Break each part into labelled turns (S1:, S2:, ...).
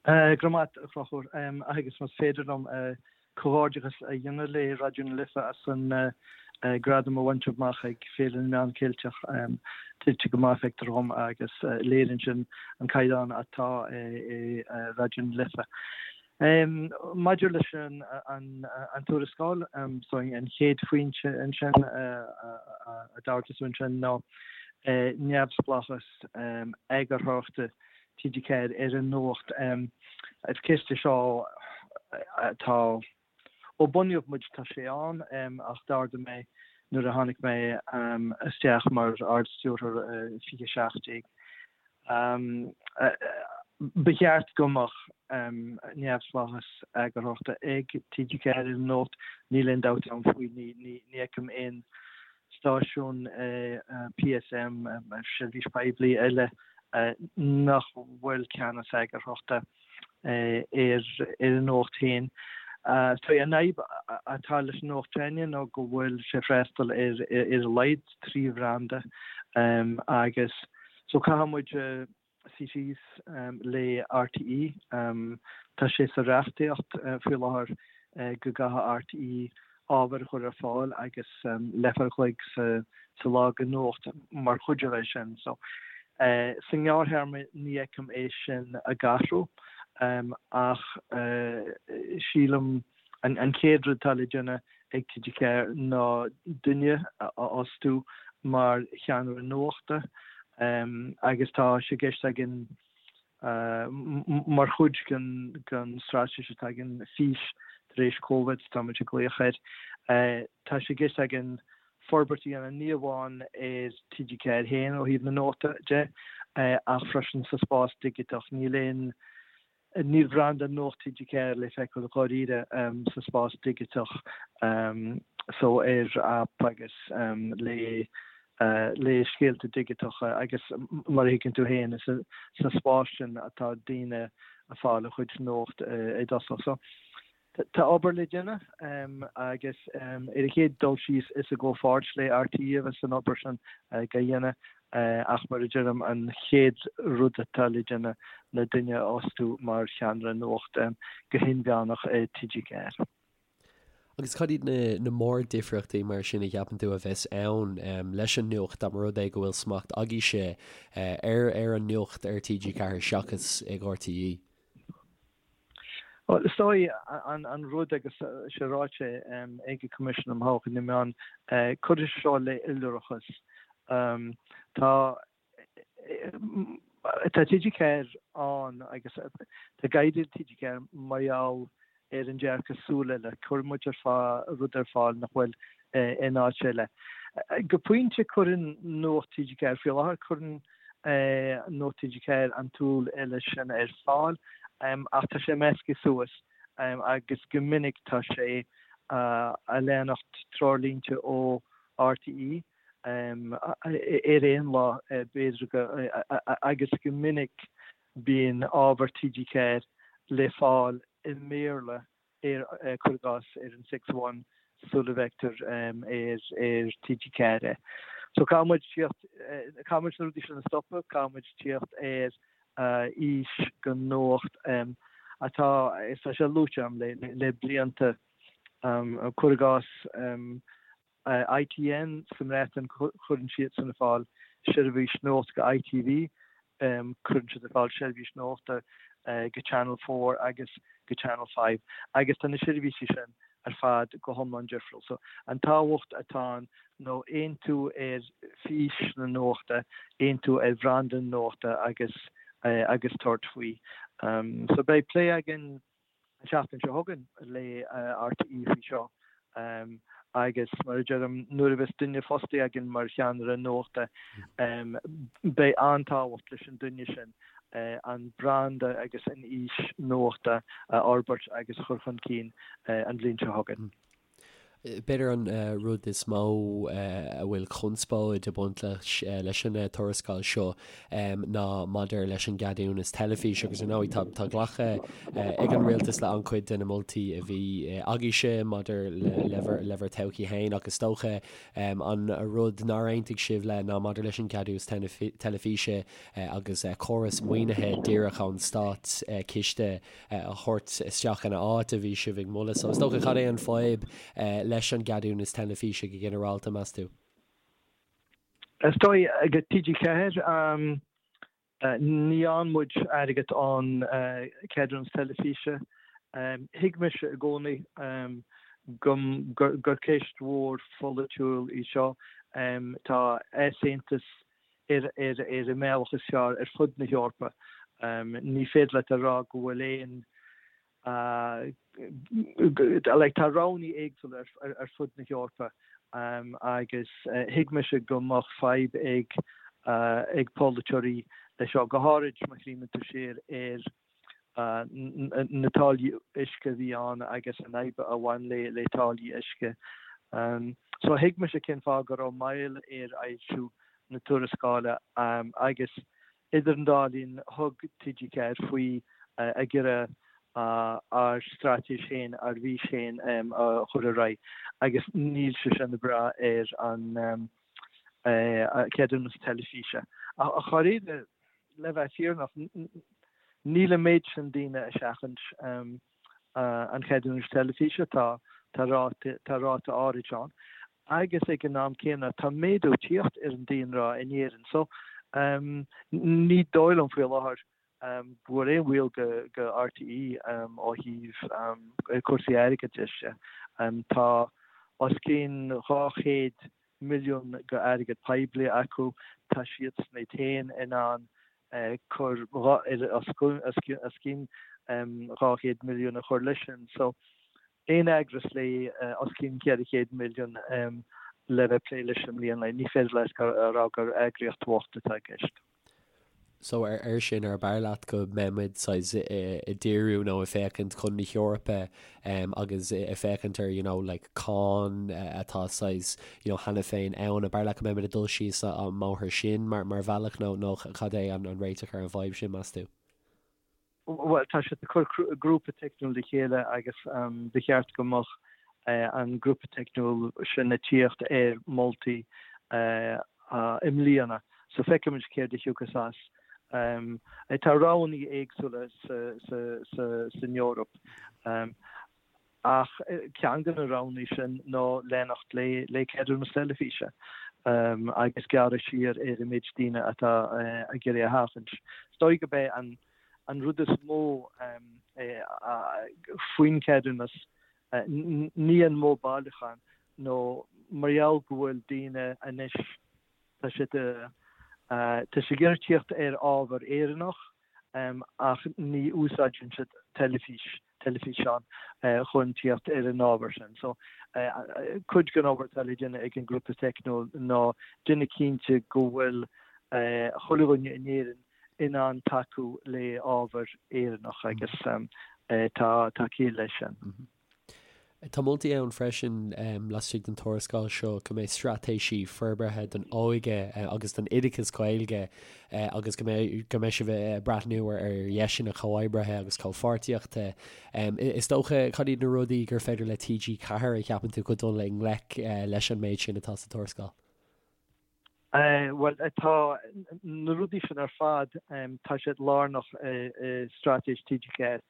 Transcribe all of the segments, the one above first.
S1: Go raibh maith agat, a Chonchúir. Agus más féidir liom comhghairdeachas a dhéanamh le Raidió na Life as an gradam a bhaint amach ag Féile na Meán Ceilteach. Tuillte go maith, feictear dhom, agus léiríonn sin an caighdeán atá i Raidió na Life. Maidir leis an tuarascáil, so an chéad phointe ansin a d'ardaigh tú ansin ná neamhspleáchas eagarthóireachta TG4 ar an nuacht. Is ceist é seo atá, ó bunaíodh muid tá sé ann ach d'ardaigh mé nuair a tháinig mé isteach mar Ard-Stiúrthóir i 2017. Ba cheart go mbeadh neamhspleáchas eagarthóireachta ag TG4 ar an nuacht, níl aon dabht agam faoi, ní fheicim aon stáisiún PSM, seirbhís poiblí eile, nach bhfuil ceannas eagarthóireachta ar an nuacht féin. So an fhadhb atá leis an Nuacht s'againne ná go bhfuil sé ag freastal ar ar a laghad 3 bhranda agus so caithfidh muid suí síos le RTÉ. Tá sé sa reachtaíocht faoi láthair go gcaithfidh RTÉ ábhar a chur ar fáil agus leathuair a chloig sa lá de nuacht mar chuid de sin. So sa ngearrthéarma ní fheicim é sin ag athrú ach sílim an chéad rud atá le déanamh ag TG4 ná duine a fhostú mar cheannaire nuachta agus tá sé i gceist againn mar chuid den straitéis atá againn, Fís tar éis Covid, tá muid ag glaoch air. Tá sé i gceist againn forbairt a dhéanamh ní amháin ar TG4 féin ó thaobh na nuachta de ach freisin sa spás digiteach. Níl aon Níl branda Nuacht TG4 le feiceáil dháiríre sa spás digiteach so ar aip agus le le scéalta digiteacha agus mar a thuigeann tú féin is sa spás sin atá daoine ag fáil a chuid nuacht i dtosach. So Tá obair le déanamh agus ar an chéad dul síos is i gcomhpháirt le RTÉ a bheas an obair sin á dhéanamh ach mar a deirim an chéad rud atá le déanamh ná duine a fhostú mar cheannaire nuachta go hinmheánach i TG4.
S2: Agus cad iad na mórdhifríochtaí mar sin a cheapann tú a bheas ann leis an nuacht dá mba rud é go bhfuil smacht agaibhse ar ar an nuacht ar TG4 seachas ag RTÉ?
S1: Bhuel, is dóigh an rud agus sé ráite ag an Coimisiún um Thodhchaí na Meán, cuirfidh sé seo le iolrachas. Tá tá TG4 ann agus tá ag éirí le TG4 mar gheall ar an dearcadh súil eile. Cuireann muid ar fáil rud ar fáil nach bhfuil in áit eile. Go pointe cuireann Nuacht TG4 faoi láthair, cuireann Nuacht TG4 an tsúil eile sin ar fáil ach tá sé measctha suas agus go minic tá sé a leanacht treoirlínte ó RTÉ ar aon lá b'fhéidir go agus go minic bíonn ábhar TG4 le fáil i mBéarla ar, cuir i gcás, ar an Six One sula bhfeictear ar TG4 é. So caithfidh muid tíocht, caithfidh muid na rudaí sin a stopadh, caithfidh muid tíocht ar fhís don nuacht atá, is tá sé luaite agam le blianta, cuir i gcás, ITN sa mBreatain, cuireann siadsan ar fáil seirbhís nuachta go ITV, cuireann siad ar fáil seirbhís nuachta go Channel 4 agus go Channel 5 agus tá na seirbhísí sin ar fad go hiomlán difriúil. So an tábhacht atá ann nó aontú ar fhís na nuachta, aontú ar bhranda na nuachta agus agus tabhairt faoi. So beidh plé againn an tseachtain seo chugainn le RTÉ faoi seo agus mar a deirim, nuair a bheas duine fostaithe againn mar cheannaire nuachta, beidh an-tábhacht leis an duine sin an branda agus an fhís nuachta a fhorbairt agus a chur chun cinn an bhliain seo chugainn.
S2: B'fhéidir an rud is mó a bhfuil conspóid ag baint leis leis an tuarascáil seo ná maidir leis an gceadúnas teilifíse agus ar ndóigh tá glactha ag an rialtas le an-chuid de na moltaí a bhí agaibhse maidir le le bhur todhchaí féin ach is dócha an rud nár aontaigh sibh le ná maidir leis an gceadúnas teilifíse agus córas maoinithe díreach ón stát ciste a thabhairt isteach ina áit a bhí sibh ag moladh. So is dócha cad é an fadhb leis an gceadúnas teilifíse go ginearálta, meas tú?
S1: Is dóigh ag TG4 ní fhaigheann muid airgead ón ceadúnas teilifíse. Thuig mise i gcónaí gur ceist mhór pholaitiúil í seo. Tá easaontas ar an mbealach is fearr ar fud na hEorpa. Ní féidir leat a rá go bhfuil aon like tá roghanna éagsúla ar fud na hEorpa agus thuig mise go mbeadh fadhb ag ag polaiteoirí leis seo, go háirid má chuimhníonn tú siar ar na táillí uisce a bhí ann agus an fhadhb a bhain le le táillí uisce. So thuig mise cén fáth go raibh moill ar fhoilsiú na tuarascála agus idir an dá linn thug TG4 faoi ag iarraidh ár straitéis féin, ár bhfís féin a chur ar aghaidh agus níl sé sin ag brath ar an ceadúnas teilifíse. Ach dháiríre, le bheith fírinneach, níl an méid sin daoine ag seachaint an cheadúnais teilifíse, tá tá ráta áirid ann. Agus ag an am céanna, tá méadú ag tíocht ar an daonra in Éirinn. So, ní dóigh liom faoi láthair go bhfuil aon bhaol go RTÉ ó thaobh cúrsaí airgeadais de. Tá os cionn 200 milliún go airgead poiblí acu, tá siadsan iad féin in ann cur os cionn 200 milliún a chur leis sin. So, aon eagras le os cionn 400 milliún le bheith ag plé leis i mbliana, ní féidir leat a rá gur eagraíocht bhocht atá i gceist.
S2: So ar sin, ar b'fhearr leat go mbeidh muid saghas ag díriú nó ag féachaint chun na hEorpa agus ag féachaint ar you know like cáin atá saghas you know cheana féin ann, ar b'fhearr leat go mbeidh muid ag dul síos an mbóthar sin mar mar bhealach nó nó cad é an an réiteach ar an bhfadhb sin meas tú?
S1: Bhuel, tá siad ag cur grúpa teicniúil le chéile agus ba cheart go mbeadh an grúpa teicniúil sin ag tíocht ar moltaí i mbliana. So feicfimid céard a thiocfas as. Tá roghanna éagsúla san Eoraip. Ach ceann de na roghanna sin ná leanacht le ceadúnas teilifíse agus gearradh siar ar an méid daoine atá ag iarraidh a sheachaint. Is dóigh gurb é an rud is mó faoin cheadúnas ní an modh bailiúcháin nó mar gheall go bhfuil daoine anois tá siad tá siad ag iarraidh tíocht ar ábhar Éireannach ach ní úsáideann siad teilifís, teilifíseán chun tíocht ar an ábhar sin. So, cuid den obair atá le déanamh ag an ngrúpa teicniúil ná déanamh cinnte go bhfuil chuile dhuine in Éirinn in ann tacú le ábhar Éireannach agus tá ciall leis sin.
S2: Tá moltaí ann freisin laistigh den tuarascáil seo go mbeidh straitéisí forbartha don óige agus don oideachas Gaeilge agus go mbeidh go mbeidh sibh ag breathnú ar dheiseanna comhoibrithe agus comhpháirtíochta. Is dócha, cad iad na rudaí gur féidir le TG4 a cheapann tú chun dul i ngleic leis an méid sin atá sa tuarascáil?
S1: Bhuel, tá na rudaí sin ar fad, tá siad lárnach i straitéis TG4,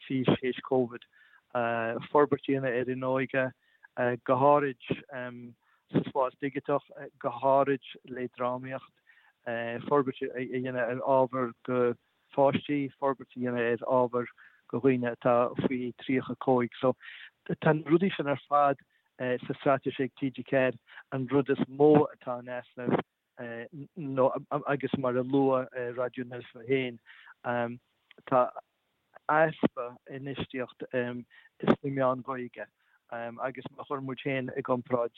S1: Fís Théis Covid. Forbairt a dhéanamh ar an óige, go háirid sa spás digiteach, go háirid le drámaíocht, forbairt a dhéanamh ar ábhar go pháistí, forbairt a dhéanamh ar ábhar go dhaoine atá faoi 35. So, tá na rudaí sin ar fad sa straitéis ag TG4. An rud is mó atá in easnamh nó, agus mar a luadh Raidió na Life féin, tá easpa infheistíocht sna meáin Ghaeilge agus má chuireann muid féin i gcomparáid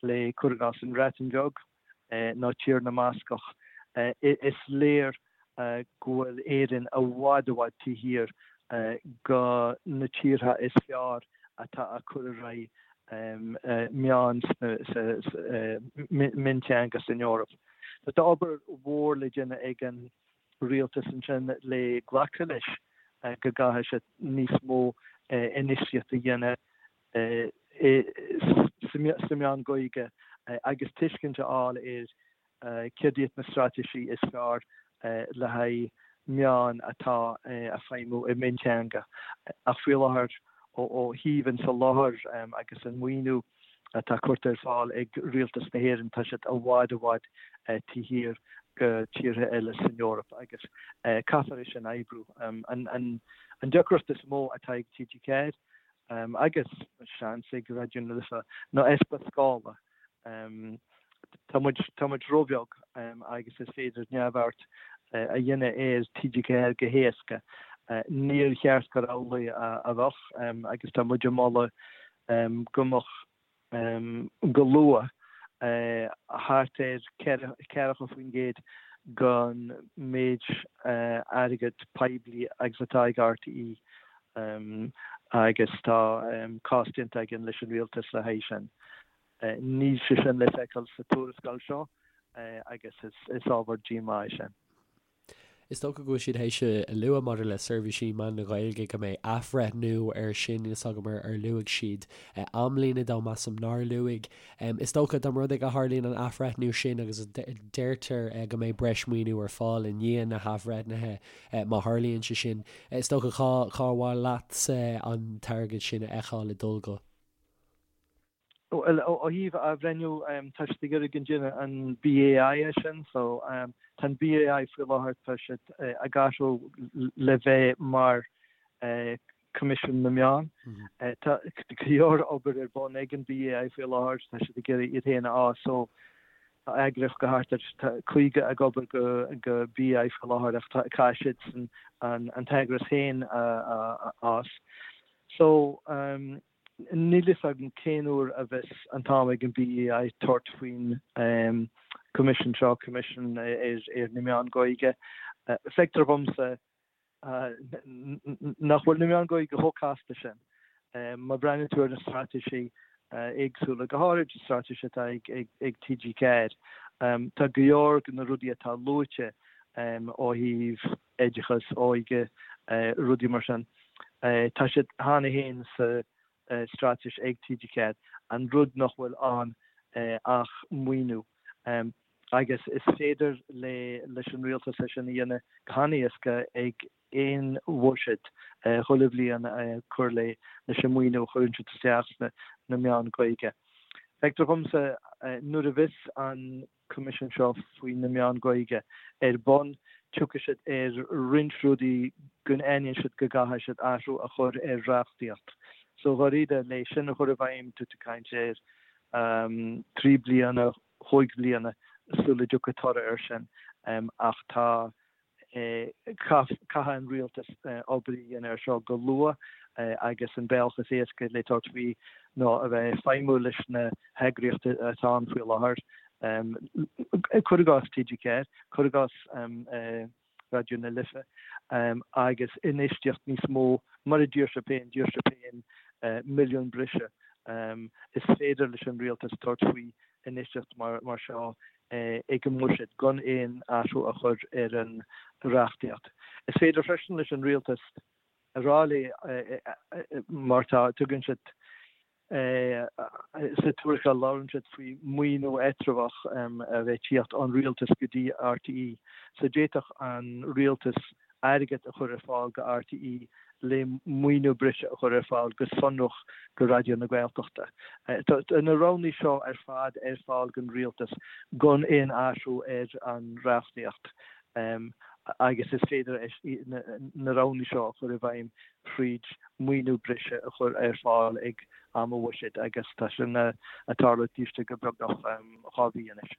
S1: le, cuir i gcás, an Bhreatain Bheag, nó Tír na mBascach. Is léir go bhfuil Éirinn i bhfad i bhfad taobh thiar go na tíortha is fearr atá ag cur ar aghaidh. meáin sa mionteanga san Eoraip. Tá obair mhór le déanamh ag an rialtas ansin le glacadh leis go gcaithfidh siad níos mó infheistíocht a dhéanamh sa meán Gaeilge agus tuiscint a fháil ar céard iad na straitéisí is fearr le haghaidh meáin atá ag feidhmiú i mionteanga. Ach faoi láthair, ó thaobh an tsoláthair agus an maoiniú atá curtha ar fáil ag Rialtas na hÉireann, tá siad i bhfad i bhfad taobh thiar de tíortha eile san Eoraip agus caithfear é sin a oibriú. An deacracht is mó atá ag TG4 agus seans ag Raidió na Life ná easpa scála. Tá muid, tá muid róbheag agus is féidir neamhaird a dhéanamh ar TG4 go héasca. Níor cheart gur amhlaidh a bheadh agus tá muid ag moladh go mbeadh go luath thart ar 40% den méid airgead poiblí agus atá ag RTÉ agus tá cás déanta againn leis an rialtas le haghaidh sin. Níl sé sin le feiceáil sa tuarascáil seo agus is ábhar díomá é sin.
S2: Is dócha go bhfuil siad théis a lua maidir le seirbhísí meán na Gaeilge go mbeidh athbhreithniú air sin, níl 's agam ar luaigh siad amlíne dó, measaim nár luaigh. Is dócha dá mba rud é go tharlaíonn an athbhreithniú sin agus deirtear go mbeidh breis maoiniú ar fáil i ndiaidh na hathbhreithnithe má tharlaíonn sé sin, is dócha cá cá mhaith leatsa an t-airgead sin a fheiceáil ag dul go?
S1: Bhuel, ó thaobh athbhreithniú, tá siad ag iarraidh go ndéanfaidh an BAI é sin. So, tá an BAI faoi láthair, tá siad ag athrú le bheith mar Coimisiún na Meán. Tá go leor obair ar bun ag an BAI faoi láthair, tá siad ag iarraidh iad féin a fhás. So, tá eagraíocht go thart ar 50 ag obair go BAI faoi láthair ach caithfidh siad an t-eagras féin a fhás. So, Níl fhios agam cén uair a bheas an t-am ag an BAI tabhairt faoin Coimisiún seo, Coimisiún ar na Meáin Ghaeilge. Feictear dhomsa nach bhfuil na meáin Ghaeilge chomh casta sin. Má bhreathnaíonn tú ar na straitéisí éagsúla, go háirid an straitéis atá ag TG4, tá go leor de na rudaí atá luaite ó thaobh oideachas, óige, rudaí mar sin. Tá siad cheana féin sa straitéis ag TG4, an rud nach bhfuil ann ach maoiniú. Agus is féidir leis an rialtas é sin a dhéanamh go han-éasca ag aon bhuiséad chuile bhliain cur leis an maoiniú a chuireann siad isteach sna meáin Ghaeilge. Feictear dhomsa nuair a bheas an Coimisiún seo faoi na meáin Ghaeilge ar bun, tiocfaidh siad ar roinnt rudaí go n-aithníonn siad go gcaithfidh siad athrú a chur ar reachtaíocht. So dháiríre, le sin a chur i bhfeidhm, tá tú ag caint ar 3 bliana, chúig bhliana sula dtiocfaidh toradh air sin. Ach tá Caithfidh an rialtas obair a dhéanamh air seo go luath agus an bealach is éasca le tabhairt faoi ná a bheith ag feidhmiú leis na heagraíochtaí atá ann faoi láthair, cuir i gcás TG4, cuir i gcás Raidió na Life, agus infheistíocht níos mó, mar a d'iarr sibh féin, d'iarr sibh féin milliún breise. Is féidir leis an rialtas tabhairt faoi infheistíocht mar seo ag an mbuiséad gan aon athrú a chur ar an reachtaíocht. Is féidir freisin leis an rialtas a rá le mar tá, tugann siad sa tuarascáil labhrann siad faoi maoiniú eatramhach a bheith ag tíocht ón rialtas go dtí RTÉ. So d'fhéadfadh an rialtas airgead a chur ar fáil go RTÉ le maoiniú breise a chur ar fáil go sonrach go Raidió na Gaeltachta. Tá na roghanna seo ar fad ar fáil don rialtas gan aon athrú ar an reachtaíocht agus is féidir na roghanna seo a chur i bhfeidhm thríd maoiniú breise a chur ar fáil ag am an bhuiséid agus tá sin ag tarlú taobh istigh de beagnach 2 mhí anois.